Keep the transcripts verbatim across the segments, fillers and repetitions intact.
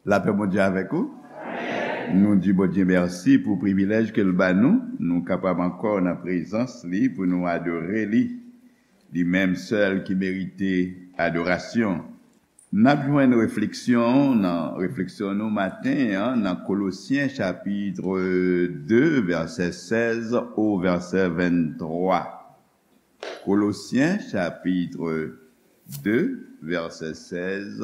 Lapè Bondye avèk ou. Nou di Bondye mèsi pou privilèj ke l ba nou. Nou kapab ankò nan prezans li pou nou adore li. Li menm sèl ki merite adorasyon. N ap jwenn refleksyon nan refleksyon nou maten an nan Kolosyen chapit de, vèsè sèz o vèsè venntwa. Kolosyen chapit de, vèsè sèz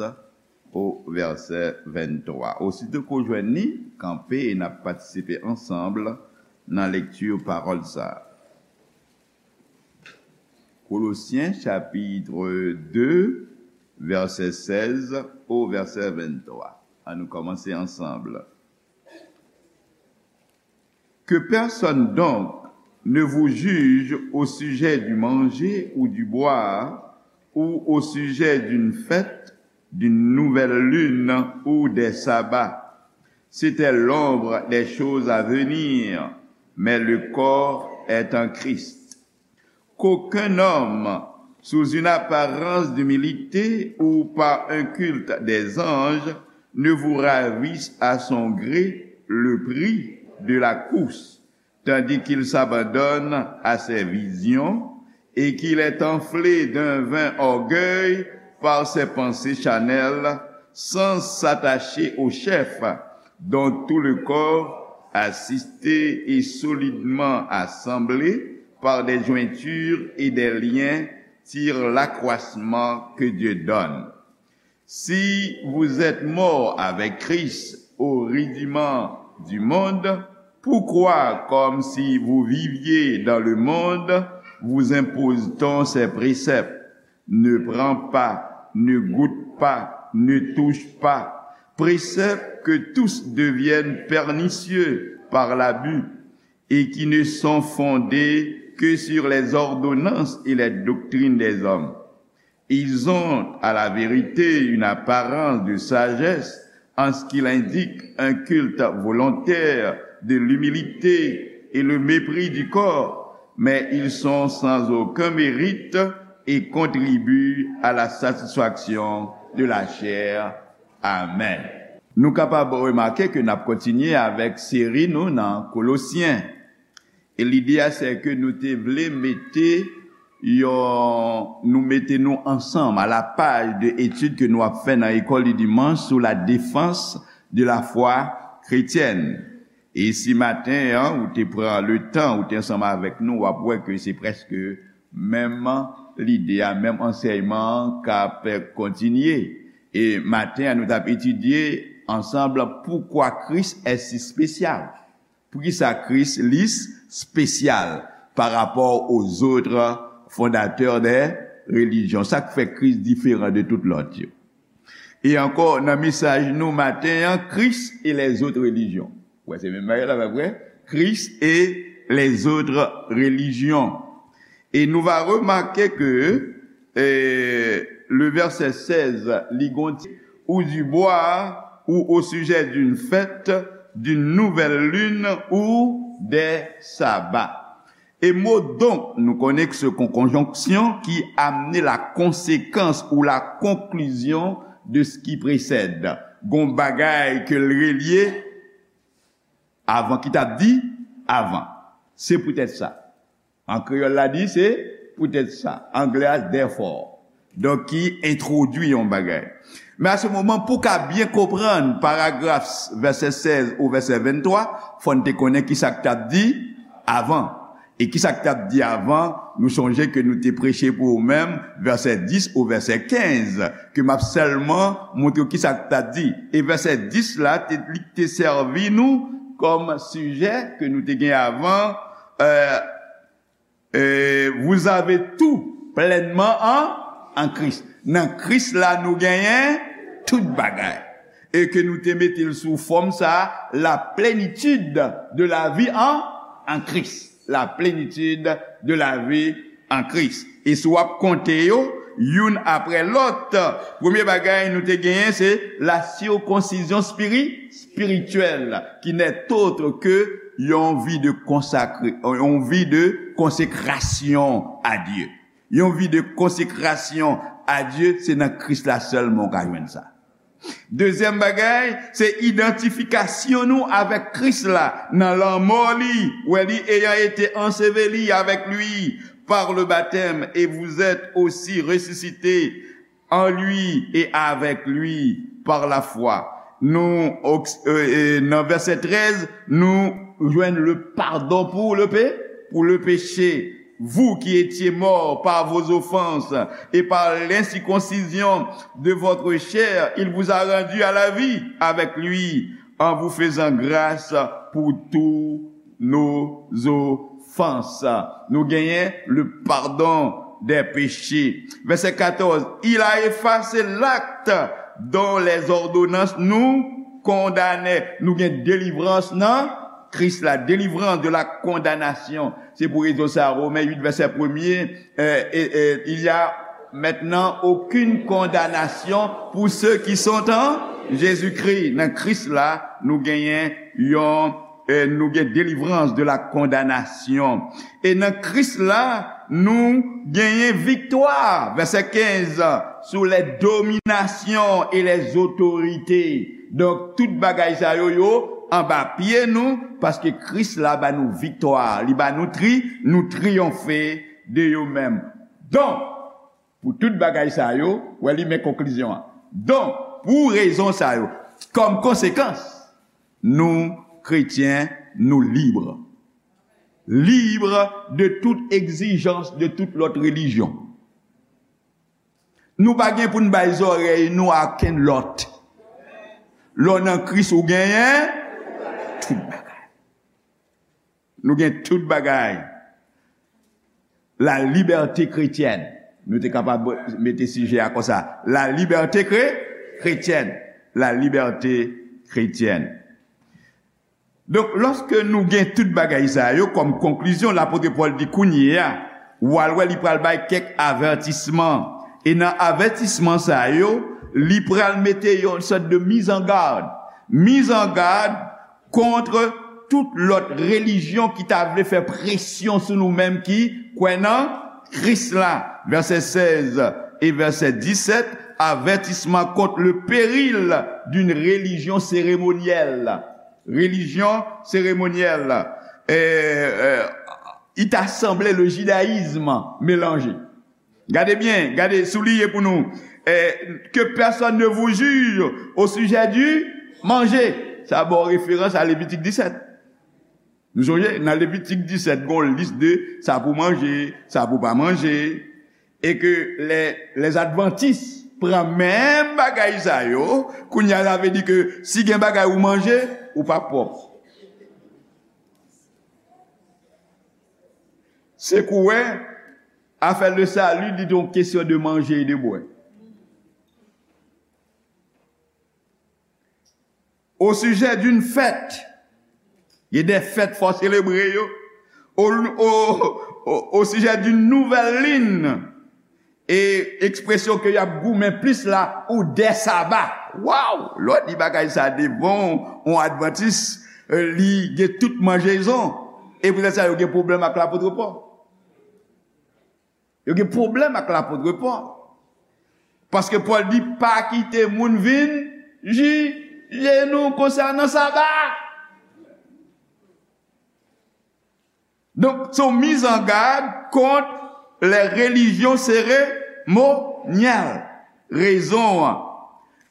o vèsè venntwa. Osito ke w jwenn li, kanpe e n ap patisipe ansanm nan lekti pawòl sa a. Kolosyen chapit de, vèsè sèz o vèsè venntwa. Ann nou kòmanse ansanm. Que personne donc ne vous juge au sujet du manger ou du boire, ou au sujet d'une fête, d'une nouvelle lune ou des sabbats. C'était l'ombre des choses à venir, mais le corps est en Christ. Qu'aucun homme, sous une apparence d'humilité ou par un culte des anges, ne vous ravisse à son gré le prix de la course, tandis qu'il s'abandonne à ses visions et qu'il est enflé d'un vain orgueil par ses pensées charnelles, sans s'attacher au chef, dont tout le corps, assisté et solidement assemblé par des jointures et des liens, tire l'accroissement que Dieu donne. Si vous êtes morts avec Christ au rudiment du monde, pourquoi, comme si vous viviez dans le monde, vous impose-t-on ces préceptes? Ne prends pas, ne goûte pas, ne touche pas. Préceptes que tous deviennent pernicieux par l'abus et qui ne sont fondés que sur les ordonnances et les doctrines des hommes. Ils ont, à la vérité, une apparence de sagesse en ce qu'il indique un culte volontaire de l'humilité et le mépris du corps, mais ils sont sans aucun mérite et contribuent à la satisfaction de la chair. Amèn. Nou kapab remake ke n ap kontinye avèk seri nou nan Kolosyen. E lide a, se ke nou te vle mete yon, nou mete nou ansanm à la page de etid ke nou ap fè nan École du dimanche sur la défense de la foi chrétienne. E si maten an, ou te pran le tan, ou te ansanm avèk nou, w ap wè ke se prèske menm lide a, menm ansèyman an k ap kontinye. E maten an, nou t ap etidye ansanm poukwa Christ est si spécial. Poukisa Kris li spesyal pa rapò aux autres fondateurs des religions? Sa k fè Kris diferan de tout lòt yo? E ankò, nan mesaj nou maten an, Christ et les autres religions. Wè, se menm bagay la, pa vre? Christ et les autres religions. Et nous va remarquer que, euh, le verset seize, li gon ti, ou du bois, ou au sujet d'une fête, d'une nouvelle lune ou des sabbats. E mo donc, nou konnen ke se yon konjonksyon ki amene la konsekans ou la konklizyon de ce qui précède. Gon bagay ke l relye avan ki t ap di avan. Se poutèt sa. An kreyòl la di se poutèt sa. Anglè a therefore. Donk ki entwodui yon bagay. Men a se moman pou w ka byen konprann paragraf vèsè sèz ou vèsè venntwa, fò n te konnen kisa k t ap di avan. E kisa k t ap di avan, nou sonje ke nou te preche pou ou menm vèsè dis ou vèsè kenz, ke m ap sèlman montre w kisa k t ap di. E vèsè dis la, te, li te sèvi nou kòm sijè ke nou te gen avan, euh, euh, vous avez tout pleinement en, en Christ. Nan Kris la, nou genyen tout bagay. E ke nou te mete l sou fòm sa, la plénitude de la vie en, en Christ. La plénitude de la vie en Christ. E si w ap konte yo, youn apre lòt, premye bagay nou te genyen, se la circoncision spiri-, spirituelle, qui n'est autre que yon vi de konsakre, yon vi de konsekrasyon a Dye. Yon vi de konsekrasyon a Dye, se nan Kris la sèlman w ka jwenn sa. Dezyèm bagay, se idantifikasyon nou avèk Kris la nan lanmò li, wè li, ayant été enseveli avec lui par le baptême, et vous êtes aussi ressuscités en lui et avec lui par la foi. Nou, oks- e, e, nan vèsè trèz, nou jwenn le pardon pour le pé, pour le péché. Vous qui étiez morts par vos offenses et par l'incirconcision de votre chair, il vous a rendus à la vie avec lui, en vous faisant grâce pour tous nos offenses. Nou genyen le pardon des péchés. Vèsè katòz, il a effacé l'acte dont les ordonnances nous condamnaient. Nou gen delivrans nan Kris la, délivrance de la condamnation. Se pou rezon sa, Romen uit, vèsè premye, euh, et, et il y a maintenant aucune condamnation pour ceux qui sont en Jésus-Christ. Nan Kris la, nou genyen yon, euh, nou gen délivrance de la condamnation. E nan Kris la, nou genyen viktwa, vèsè kenz, sou les dominations et les autorités. Donk, tout bagay sa yo, yo anba pye nou, paske Kris la ba nou viktwa, li ba nou tri, nou triyonfe de yo menm. Donk, pou tout bagay sa yo, wè li men konklizyon an. Donk, pou rezon sa yo, kòm konsekans, nou, kretyen, nou lib. Lib de tout egzijans de tout lòt relijyon. Nou pa gen pou n bay zòrèy nou a okenn lòt. Lè w nan Kris, ou genyen tout bagay. Nou gen tout bagay. La liberté chrétienne. Nou te kapab mete sijè a konsa. La liberté chré- chrétienne. La liberté chrétienne. Donk, lòske nou gen tout bagay sa yo kòm konklizyon, lapot Pòl di kounye a, w al wè li pral bay kèk avètisman. E nan avètisman sa yo, li pral mete yon sòt de mizangad. Mizangad kont tout lòt relijyon ki ta vle fè presyon sou nou menm ki kwè nan Kris la. Vèsè sèz e vèsè disèt, avertissement contre le péril d'une religion cérémonielle. Religion cérémonielle. Euh, euh, il t'a semblé le judaïsme mélangé. Gade byen, gade, souliye pou nou. Eh, que personne ne vous juge au sujet du manger. Sa ba w referans a Levitik disèt. Nou sonje, nan Levitik disèt, gon lis de sa pou manje, sa pou pa manje. E ke lè, lè Advantis pran menm bagay sa yo, kounye a, sa vle di ke si gen bagay ou manje, ou pa pwòp. Se kou wè, afè le salut, li te yon kesyon de manje e de bwè. Au sujet d'une fête, il y a des fêtes fò selebre yo. Au, au, au, au sujet d'une nouvelle lune, e ekspresyon ke y ap goumen plis la, ou des sabbats. Waw! Lè w di bagay sa devan yon Advantis, eh, li gen tout manjezon. E poutèt sa, yo gen pwoblèm ak lapot Pòl. Yo gen pwoblèm ak lapot Pòl. Paske Pòl di, pa kite moun vin jije nou konsènan Saba. Donk, se yon mizangad kont les religions cérémonielles. Rezon an,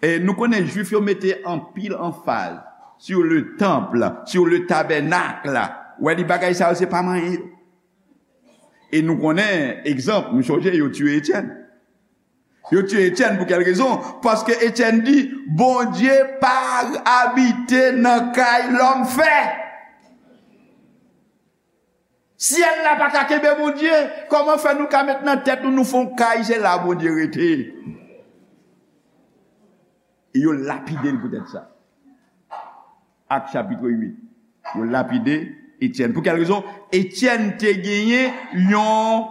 e nou konnen Jwif yo mete anpil anfaz sur le temple, sur le tabernacle. Wè, li bagay sa yo, se pa manyen yo. E nou konnen, egzanp, nou sonje yo tiye Etyèn. Yo tiye Etyèn pou kèl rezon? Paske Etyèn di, Bondye pa abite nan kay lòm fè. Syèl la pa ka kenbe Bondye. Kòman fè nou ka met nan tèt nou, nou fè yon kay, se la Bondye rete? E yo lapide l poutèt sa. Ak chapit uit. Yo lapide Etyèn. Pou kèl rezon? Etyèn te genyen yon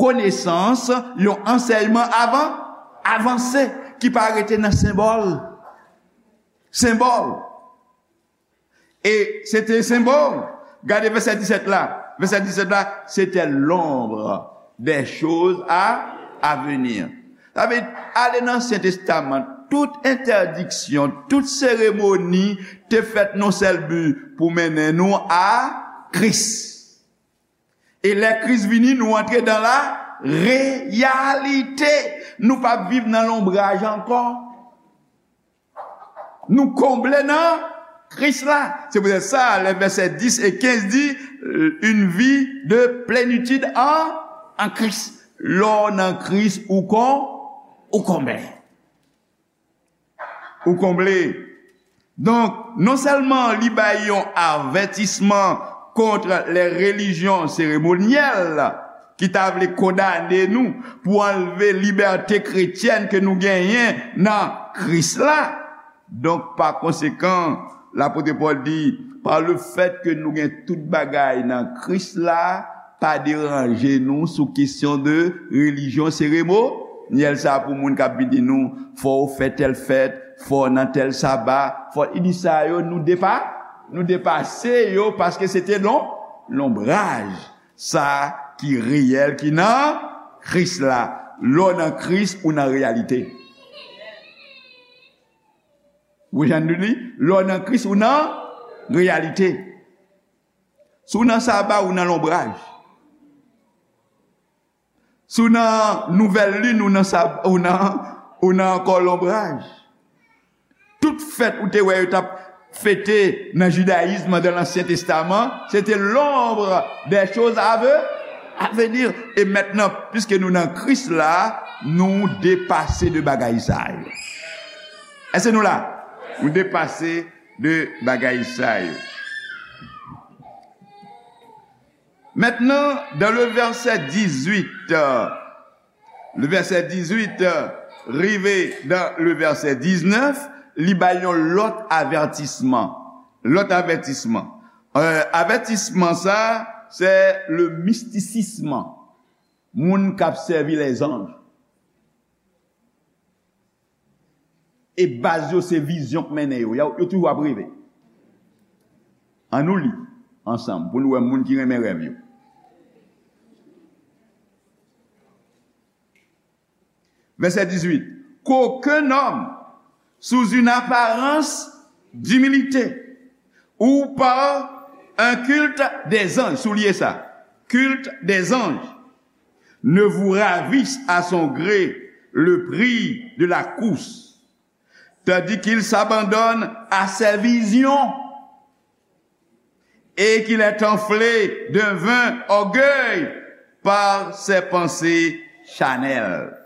konesans, yon ansèyman avan, avanse, ki pa rete nan senbòl. Senbòl. E se te senbòl. Gade vèsè disèt la. Vèsè disèt la, c'était l'ombre des choses à, à venir. Sa vle di, ale nan Ansyen Testaman, tout entèdiksyon, tout seremoni te fèt nan sèl bi pou mennen nou a Kris. E lè Kris vini, nou antre dans la réalité. Nou p ap viv nan lonbraj ankò. Nou konble nan Kris la. Se poutèt sa, lè vèsè dis e kenz di, une vie de plénitude en, en Christ. Lè w nan Kris, ou kon, ou konble. Ou konble. Donk, non sèlman li bay yon avètisman kont les religions cérémonielles ki ta vle kondane nou pou anlve libète kretyèn ke nou genyen nan Kris la. Donk, pa konsekan, lapot Pòl di, pa le fèt ke nou gen tout bagay nan Kris la, pa deranje nou sou kesyon de relijyon seremonyèl sa pou moun k ap vin di nou, fò w fè tèl fèt, fò w nan tèl saba, fò, li di sa yo, nou depa, nou depase yo, paske se te lon, lonbraj sa ki reyèl, ki nan Kris la. Lè w nan Kris, ou nan reyalite. Ou jwenn li? Lè w nan Kris, ou nan reyalite. Si w nan saba, ou nan lonbraj. Si w nan nouvèl lin, ou nan sab-, ou nan, ou nan ankò lonbraj. Tout fèt ou te wè yo t ap fete nan jidayis, nan Ansyen Testaman, se te l'ombre des choses à ve-, à venir. E mentnan, piske nou nan Kris la, nou depase de bagay sa yo. Èske nou la? Nou depase de bagay sa yo. Maintenant, dans le verset dix-huit, euh, le verset dix-huit, euh, rive dans le verset dix-neuf, li bay yon lòt avètisman. Lòt avètisman. Euh, avètisman sa, se le mistisism. Moun k ap sèvi lèzanj. E baz yo se vizyon k mennen yo. Yo, yo toujou ap reve. Ann nou li ansanm pou nou wè moun ki renmen rèv yo. Verset dix-huit. Qu'aucun homme, sous une apparence d'humilité ou par un culte des anges, souliye sa, culte des anges, ne vous ravisse à son gré le prix de la course, tandis qu'il s'abandonne à ses visions et qu'il est enflé d'un vain orgueil par ses pensées charnelles.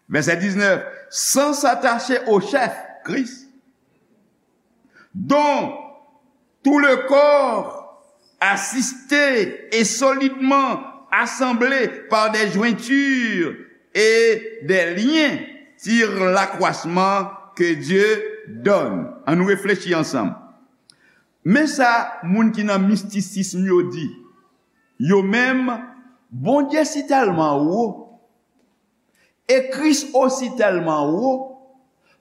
Verset dix-neuf, sans s'attacher au chef, Christ, dont tout le corps, assisté et solidement assemblé par des jointures et des liens, tire l'accroissement que Dieu donne. Ann nou reflechi ansanm. Men sa moun ki nan mistisism yo di. Yo menm, Bondye si tèlman wo, e Kris osi tèlman wo,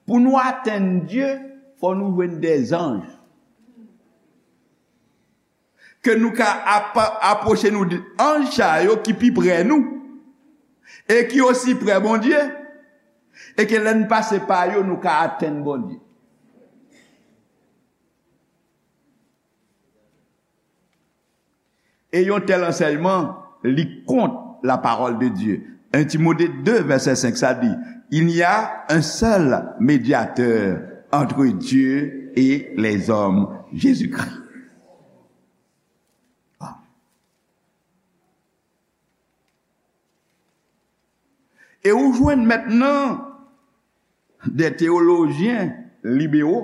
pou nou atenn Dye, fò nou jwenn dèzanj. Ke nou ka ap-, apwoche nou de anj sa yo ki pi pre nou, e ki osi pre Bondye, e ke lè n pase pa yo, nou ka atenn Bondye. E yon tèl ansèyman, li kont la parole de Dieu. Un Timothée deux, verset cinq, sa di, il n'y a un seul médiateur entre Dieu et les hommes, Jésus-Christ. E ou jwenn mentnan de teyolojyen libero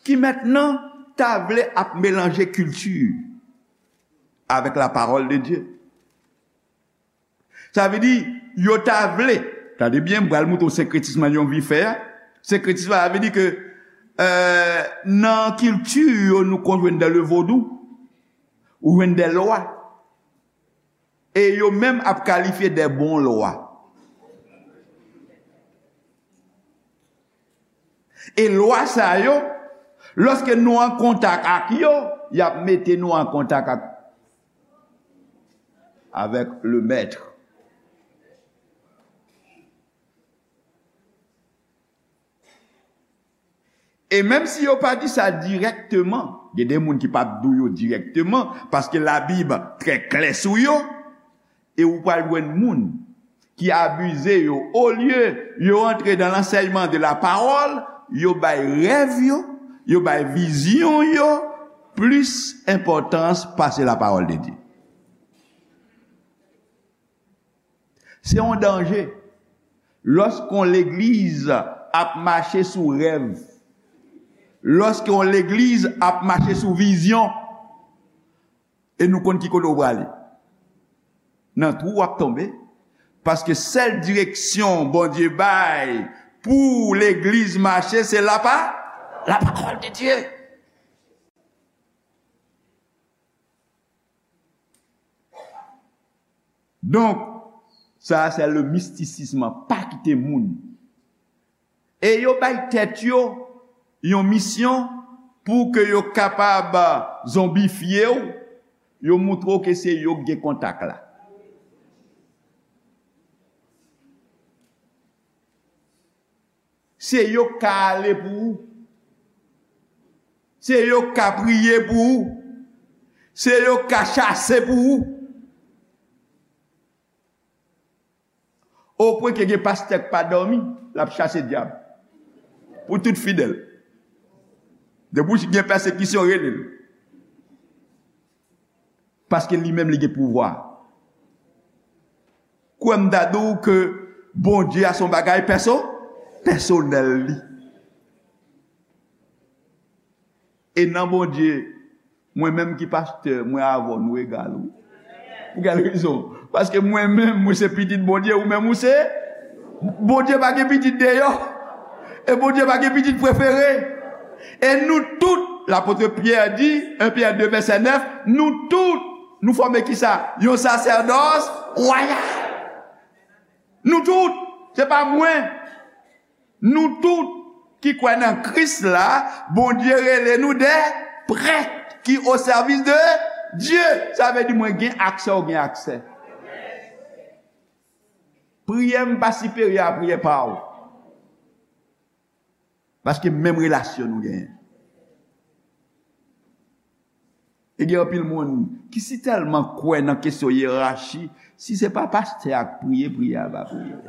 ki mentnan ta vle ap melanje kilti avèk la parole de Dieu. Sa vle di, yo ta vle, tande byen, m pral montre w senkretism nan yon vi fè a. Senkretism la vle di ke, euh, nan kilti yo nou konn jwenn dans le vodou, ou jwenn des lois. E yo menm ap kalifye de bon lwa. E lwa sa yo, lòske nou an kontak ak yo, y ap mete nou an kontak ak, avèk le mèt. E menm si yo pa di sa dirèkteman, gen de moun ki p ap di w yo dirèkteman, paske Labib trè klè sou yo, e ou pral jwenn moun ki abize yo, olye yo antre dans l'enseignement de la parole, yo bay rèv yo, yo bay vizyon yo plis enpòtans pase la parole de Dieu. Se yon danje. Lòske yon legliz ap mache sou rèv, lòske yon legliz ap mache sou vizyon, e nou konn ki kote w prale, nan twou w ap tonbe, paske sèl direksyon Bondye bay pou legliz mache, se la pa, la parole de Dieu. Donk, sa a se le mistisism, pa kite moun. E yo bay tèt yo yon misyon pou ke yo kapab zonbifye w, yo moutre w ke se yo k gen kontak la. Se yo k ka ale pou ou. Se yo k ka priye pou ou. Se yo k ka chase pou ou. Opwen ke gen pastè k pa dòmi, l ap chase dyab. Pou tout fidèl. Depi w gen pèsekisyon, rele l. Paske li menm li gen pouvwa. Kwè m ta di w ke Bondye a se yon bagay pèso-, pèsonèl li. E nan Bondye, mwen menm ki pastè, mwen avè w, nou egal, wi. Pou kèl rezon? Paske mwen menm, mwen se pitit Bondye, ou menm ou se. Bondye pa gen pitit deyò. E Bondye pa gen pitit prefere. E nou tout, lapot Pyè di, en Pyè de vèsè nèf, nou tout, nou fòme kisa? Yon sasèdòs wayal. Nou tout, se pa mwen. Nou tout ki kwè nan Kris la, Bondye rele nou de prèt ki o sèvis de Dye. Sa vle di mwen gen aksè, ou gen aksè. Priyè m pa siperyè a priyè pa w. Paske menm relasyon nou genyen. E gen anpil moun ki si tèlman kwè nan kesyon yerachi, si se pa pastè a k priye, priyè a pa priye.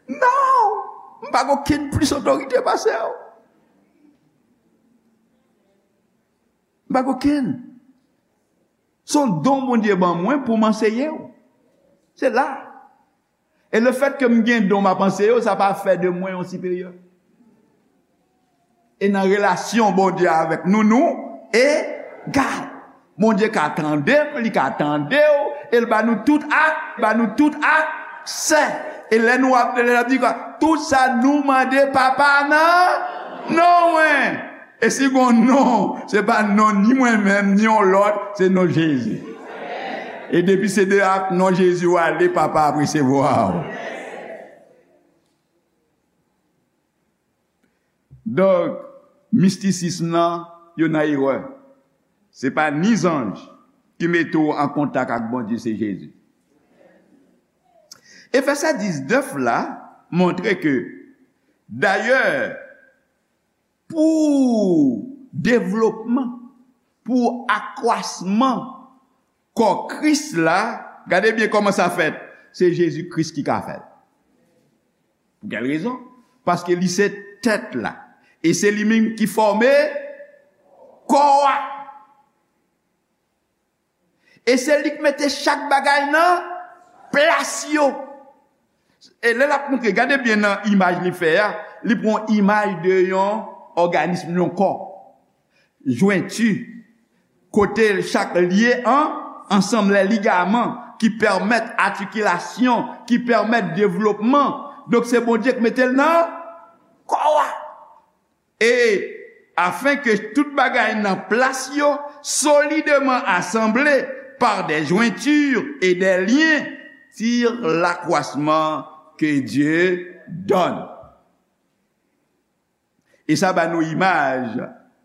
Non! M pa gen okenn plis otorite pase w. M pa gen okenn. Se yon don Bondye ban mwen pou m anseye w. Se la. E lefèt ke m gen don m ap anseye w, sa pa fè de mwen yon siperyè. E nan relasyon Bondye avèk nou, nou egal. Bondye ka tande m, li ka tande w, e l ba nou tout ak, ba nou tout aksè. E lè nou ap, lè l ap di, tout sa nou mande Papa nan non mwen. E si gon non, se pa non ni mwen menm, ni yon lòt, se non Jezi. E depi se de ak non Jezi w ale, Papa ap resevwa w. Donk, mistisism nan, yo nan erè. Se pa ni zanj ki mete w an kontak ak Bondye, se Jezi. E vèsè diznèf la montre ke, dayè, pou devlopman, pou akwasman kò Kris la, gade byen kòman sa fèt. Se Jezi Kris ki ka fè l. Pou kèl rezon? Paske li se tèt la. E se li menm ki fòme kò a. E se li k mete chak bagay nan plas yo. E lè l ap montre, gade byen nan imaj li fè a, li pran imaj de yon òganism, yon kò. Jwenti, kote chak lye an, ansanm, lè ligaman ki pèmèt atikilasyon, ki pèmèt devlopman. Donk, se Bondye k mete l nan kò a. Et afin que tout bagay nan plas yo, solidement assemblés par des jointures et des liens, tire l'accroissement que Dieu donne. E sa ba nou imaj,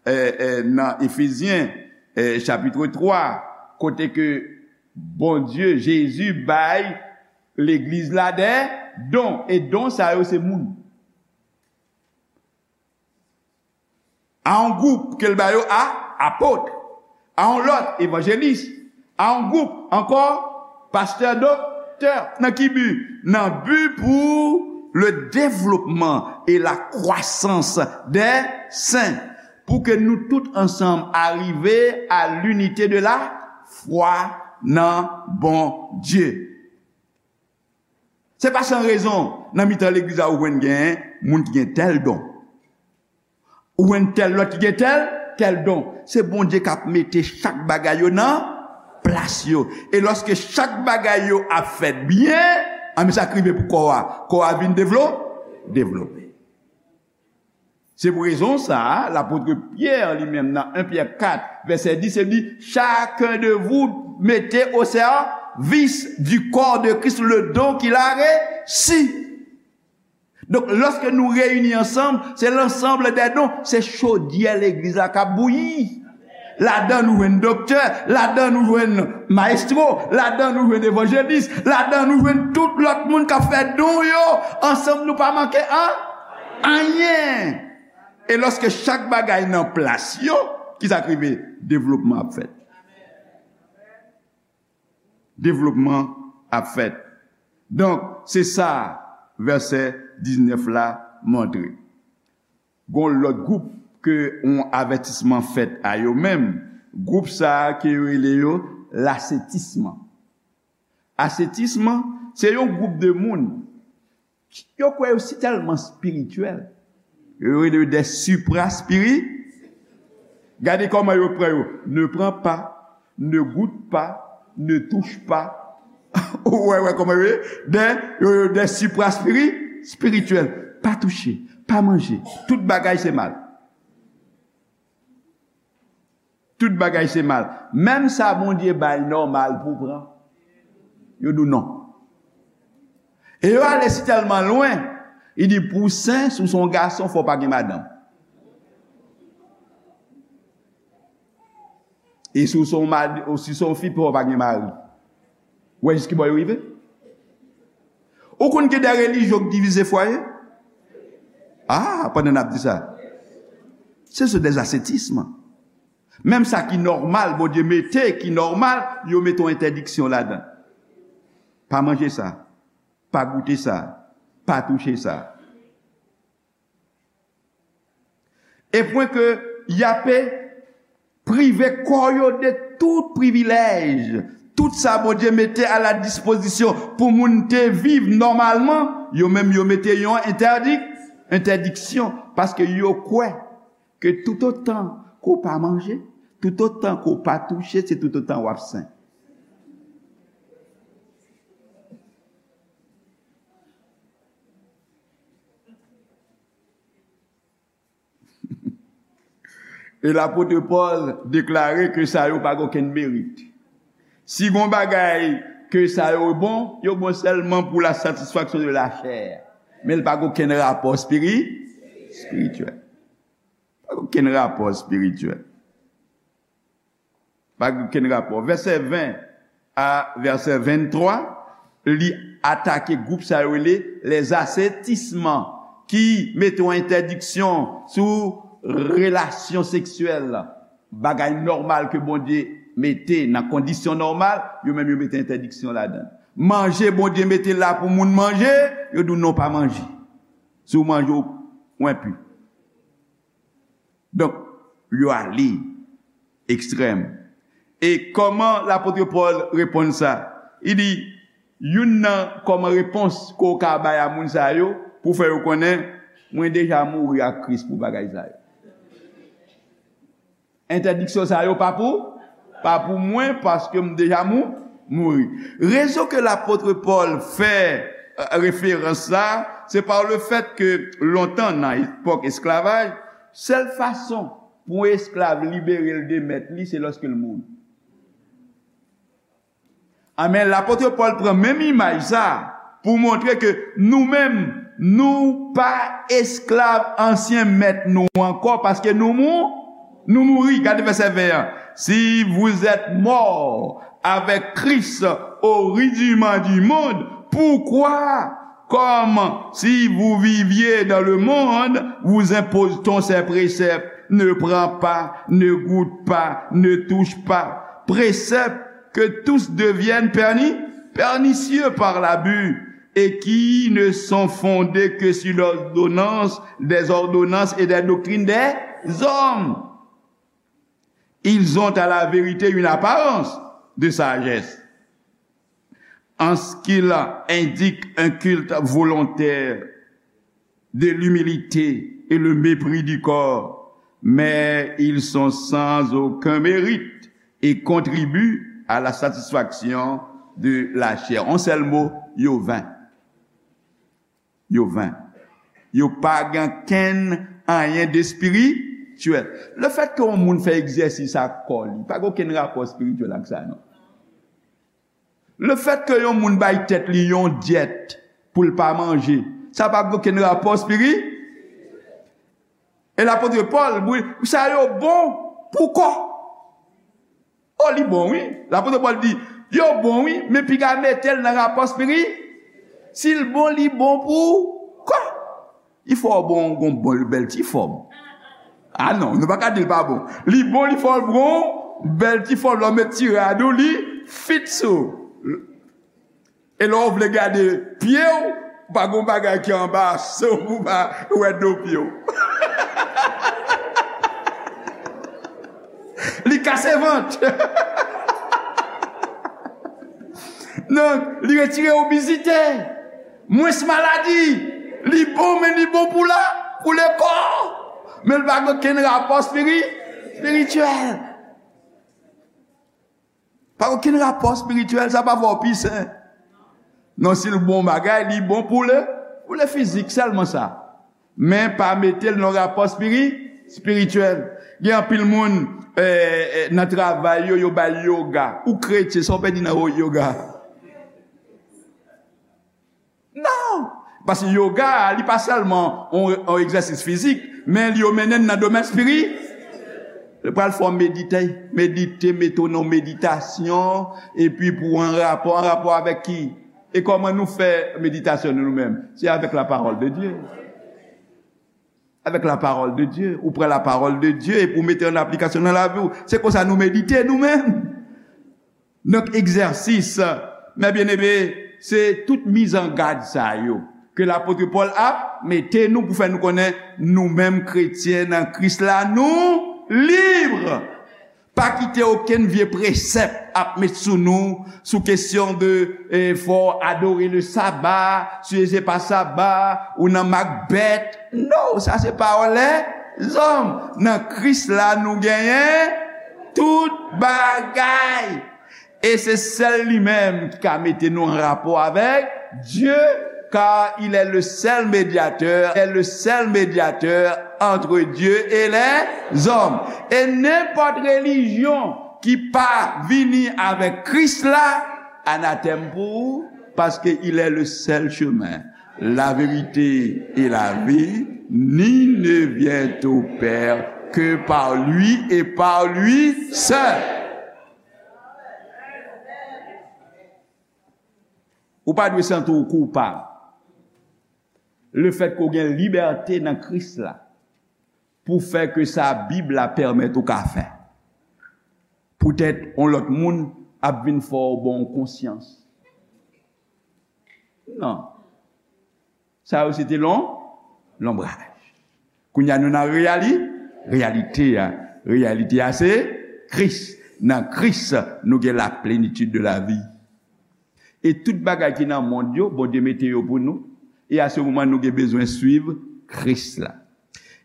eh, eh, nan Efezyen, eh, chapit twa, kote ke Bondye, Jezi bay legliz la de don, e don sa yo se moun. A yon gwoup ke l ba yo a apot, a yon lòt evanjelis, a yon gwoup ankò pastè, doktè. Nan ki bi? Nan bi pou le développement et la croissance des saints, pou ke nou tout ansanm arive à l'unité de la foi nan Bondye. Se pa san rezon, nan mitan legliz la, ou jwenn gen moun ki gen tèl don. Ou jwenn tèl lòt ki gen tèl, tèl don. Se Bondye k ap mete chak bagay yo nan plas yo. E lòske chak bagay yo ap fèt byen, anben sa k rive pou kò a? Kò a vin devlo-, devlope. Se pou rezon sa a, lapot Pyè li menm nan en Pyè kat, vèsè dis, li di, chacun de vous mettez au service du corps de Christ le don qu'il a reçu. Donk, lòske nou reyini ansanm, se l'ensemble des dons, se chodyè legliz la k ap bouyi. Ladan nou jwenn doktè, ladan nou jwenn mayestwo, ladan nou jwenn evanjelis, ladan nou jwenn tout lòt moun k ap fè don yo. Ansanm nou pa manke an, anyen. E lòske chak bagay nan plas yo, ki sa k rive? Devlopman ap fèt. Devlopman ap fèt. Donk, se sa vèsè diznèf la montre. Gon lòt gwoup ke yon avètisman fèt a yo menm. Gwoup sa a ke yo rele yo lasetism. Asetism, se yon gwoup de moun yo kwè yo si tèlman espirityèl. Yo rele yo des supra-spiri-. Gade kòman yo pran yo. Ne prends pas, ne goûte pas, ne touche pas. Ou wè, wè kòman yo ye? Des, yo, yo, des supra-spiri-, spirityèl. Pa touche, pa manje. Tout bagay se mal. Tout bagay se mal. Menm sa Bondye bay nòmal pou pran, yo di w non. E yo ale si tèlman lwen, li di pou w sen, si w se yon gason, fò w pa gen madanm. E si w se yon mad-, ou si w se yon fi, fò w pa gen mari. Ou wè jis ki bò yo rive? Ou konn gen de relijyon k divize fwaye? Ah, pandan n ap di sa. Se sou des asetism. Menm sa ki nòmal, Bondye mete ki nòmal, yo mete yon entèdiksyon ladan. Pa manje sa. Pa goute sa. Pa touche sa. E pwen ke y ape prive kò yo de tout privilèj, tout sa Bondye mete a la dispozisyon pou moun te viv nòmalman, yo menm yo mete yon entèdi-, entèdiksyon, paske yo kwè ke toutotan ke w pa manje, toutotan ke w pa touche, se toutotan w ap sen. E lapot Pòl deklare ke sa yo pa gen okenn merit. Si gon bagay ke sa yo bon, yo bon sèlman pou la satisfaction de la chair. Men l pa gen okenn rapò espiri-, espirityèl. Pa gen okenn rapò espirityèl. Pa gen okenn rapò. Vèsè ven a vèsè venntwa, li atake gwoup sa yo rele les ascétisme, ki mete yon entèdiksyon sou relasyon seksyèl, bagay nòmal ke Bondye mete nan kondisyon nòmal, yo menm yo mete entèdiksyon ladan. Manje Bondye mete la pou moun manje, yo di w non, pa manje. Si w manje, w enpi. Donk, yo ale ekstrèm. E kòman lapot Pòl reponn sa? Li di, youn nan kòman repons ke w ka bay a moun sa yo, pou fè yo konnen, mwen deja mouri ak Kris pou bagay sa yo. Entèdiksyon sa yo pa pou, pa pou mwen, paske m deja mou-, mouri. Rezon ke lapot Pòl fè, euh, referans sa, se pa le fèt ke lontan, nan epòk esklavaj, sèl fason pou yon esklav libere l de mèt li, se lòske l mouri. Amèn. Lapot Pòl pran menm imaj sa pou montre ke nou menm, nou pa esklav ansyen mèt nou ankò, paske nou mou-, nou mouri. Gade vèsè ven an. Si vous êtes morts avec Christ au rudiment du monde, pourquoi, comme si vous viviez dans le monde, vous impose-t-on ces préceptes? Ne prends pas, ne goûte pas, ne touche pas. Préceptes que tous deviennent perni-, pernicieux par l'abus et qui ne sont fondés que sur l'ordonnance des ordonnances et des doctrines des hommes. Ils ont à la vérité une apparence de sagesse, en ce qu'ils indiquent un culte volontaire de l'humilité et le mépris du corps, mais ils sont sans aucun mérite et contribuent à la satisfaction de la chair. Yon sèl mo, yo ven. Yo ven. Yo pa gen kenn anyen de espirityèl. Lefètke yon moun fè egzèsis ak kò li, pa gen okenn rapò espirityèl ak sa, non. Lefètke yon moun bay tèt li yon dyèt pou l pa manje, sa pa gen okenn rapò espiri-, e lapot Pòl, wi, sa yo bon pou kò. O, li bon, wi. Lapot Pòl di, yo bon, wi, men piga mete l nan rapò espiri-, si l bon, li bon pou kò. Li fè w bon, gon bon, bèl ti fòm. A non, nou pa ka di l pa bon. Li bon, li fè w bon, bèl ti fòm, lè w met ti rad ou, li fit sou. E lè w vle gade pye w, pa gon bagay ki anba so w pou pa wè do pye w. Li kase vant. Donk, li retire obezite, mwens maladi. Li bon, men li bon pou la, pou lekò. Men li pa gen okenn rapò espiri-, espirityèl. Pa okenn rapò espirityèl, sa pa fè w pi sen. Non, si l bon bagay, li bon pou le, pou le fizik, sèlman sa. Men pa mete l nan rapò espiri-, espirityèl. Gen anpil moun, eh, eh, nan travay yo, yo bay yoga. Ou kretyen, sa w pèdi nan yoga? Non! Paske yoga a, li pa sèlman yon, yon egzèsis fizik, men li yo mennen n nan domèn espiri-, li pral fè w medite, medite, mete w nan meditasyon, epi pou w an rapò, an rapò avèk ki? E kòman nou fè meditasyon nou, nou menm? Se avèk la parole de Dieu. Avec la parole de Dieu. Ou pran la parole de Dieu epi ou mete an aplikasyon nan lavi w. Se konsa nou medite nou menm. Donk, egzèsis, mes bien-aimés, se tout mizangad sa yo ke lapot Pòl ap mete nou pou fè nou konnen nou menm kretyen nan Kris la, nou lib. Pa kite okenn vye presèp ap met sou nou, sou kesyon de, eh, fò w adore le saba, si se pa saba, ou nan mak bèt. Non, sa se pawòl lèzòm. Nan Kris la, nou genyen tout bagay. E se sèl li menm ki ka mete nou an rapò avèk Dye, car il est le seul médiateur, est le seul médiateur entre Dieu et les hommes. E nenpòt relijyon ki pa vini avèk Kris la, anatèm pou ou, paske il est le seul chemin, la vérité et la vie, nul ne vient au Père que par lui et par lui seul. Ou pa dwe santi w koupab. Lefètke w gen libète nan Kris la pou fè ke sa Bib la pèmèt ou ka fè. Poutèt yon lòt moun ap vin fè w bon konsyans. Non. Sa yo se te lon-, lonbraj. Kounye a nou nan reyali-, reyalite a. Reyalite a se Kris. Nan Kris, nou gen la plénitude de la vie. E tout bagay ki nan mond yo, Bondye mete yo pou nou. E a se moman nou gen bezwen swiv Kris la.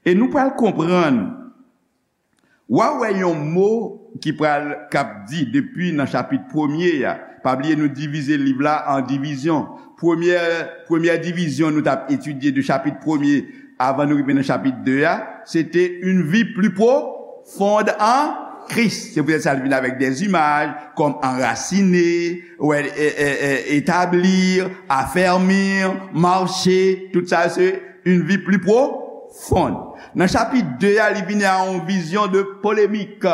E nou pral konprann W a wè yon mo ki pral, k ap di depi nan chapit premye a. Pa bliye nou divize liv la an divizyon. Premyè, premyè divizyon nou t ap etidye de chapit premye avan nou rive nan chapit de a, se te une vie plus profonde en Christ. Se poutèt sa l vin avèk des images comme enraciner, wè, e, e, e, établir, affermir, marcher, tout sa se une vie plus profonde. Nan chapit de a, li vini a yon vizyon de polemik.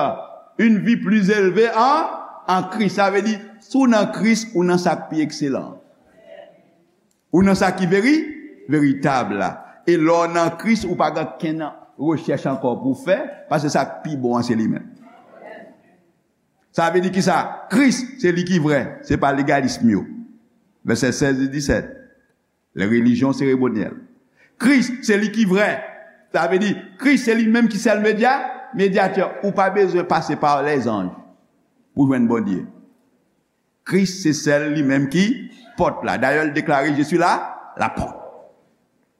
Une vie plus élevée en, en Christ. Sa vle di, si w nan Kris, ou nan sa k pi ekselan. Ou nan sa ki veri-, veritab la. E lè w nan Kris, ou pa gen kenn rechèch ankò pou w fè, paske sa k pi bon an se li menm. Sa vle di kisa? Kris, se li ki vrè, se pa legalism yo. Vèsè sèz e disèt. Les religions cérémonielles. Kris, se li ki vrè. Sa vle di, Kris, se li menm ki sèl medya, medyatè. Ou pa bezwen pase pa lèzanj pou jwenn Bondye. Kris, se sèl li menm ki pòt la. Dayè, l deklare, "Je suis la, la porte.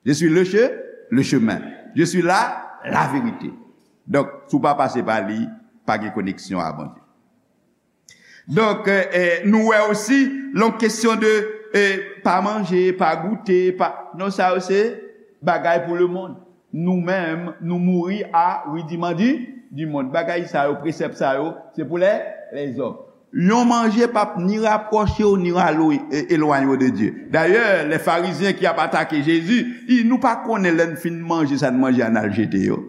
Je suis le che-, le chemin. Je suis la, la vérité." Donk, si w pa pase pa li, pa gen koneksyon a Bondye. Donk, eh, eh, nou wè osi, lè yon kesyon de, eh, pa manje, pa goute, pa, non, sa yo se bagay pou lemonn. Nou menm, nou mouri a ridiman di, di mond. Bagay sa yo, presèp sa yo, se pou lè, lèzòm. Yon manje p ap ni rapwoche w, ni rale w, e, elwanye w de Dye. Dayè, lè Farizyen ki ap atake Jezi, i, nou pa konnen lè n fin manje sa n manje a n al jete yo.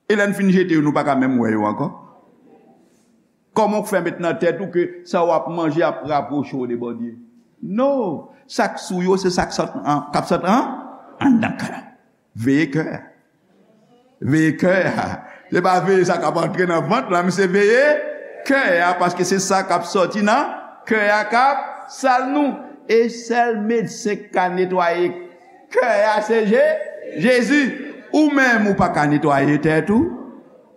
E lè n fin jete yo, nou pa ka menm wè yo ankò. Kòman w fè met nan tèt ou ke sa w ap manje ap rapwoche w de Bondye? No! Sa k sou yo, se sa k sot an, k ap sot an, anndan kè. Veye kè a. Veye kè a. Se pa veye sa k ap antre nan vant la, men se veye kè a, paske se sa k ap sòti nan kè a k ap sal nou. E sèl medsen k ka netwaye kè a se Je-, Jezi. Ou menm ou pa ka netwaye tèt ou.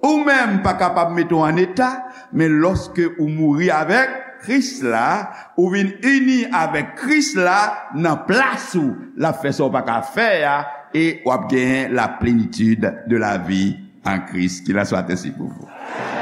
Ou menm pa kapab mete w an eta, men lòske ou mouri avèk Kris la, ou vin ini avèk Kris la nan plas ou, l ap fè sa w pa ka fè a, e w ap genyen la plenitid de la vi an Kris. Qu'il en soit ainsi pour vous.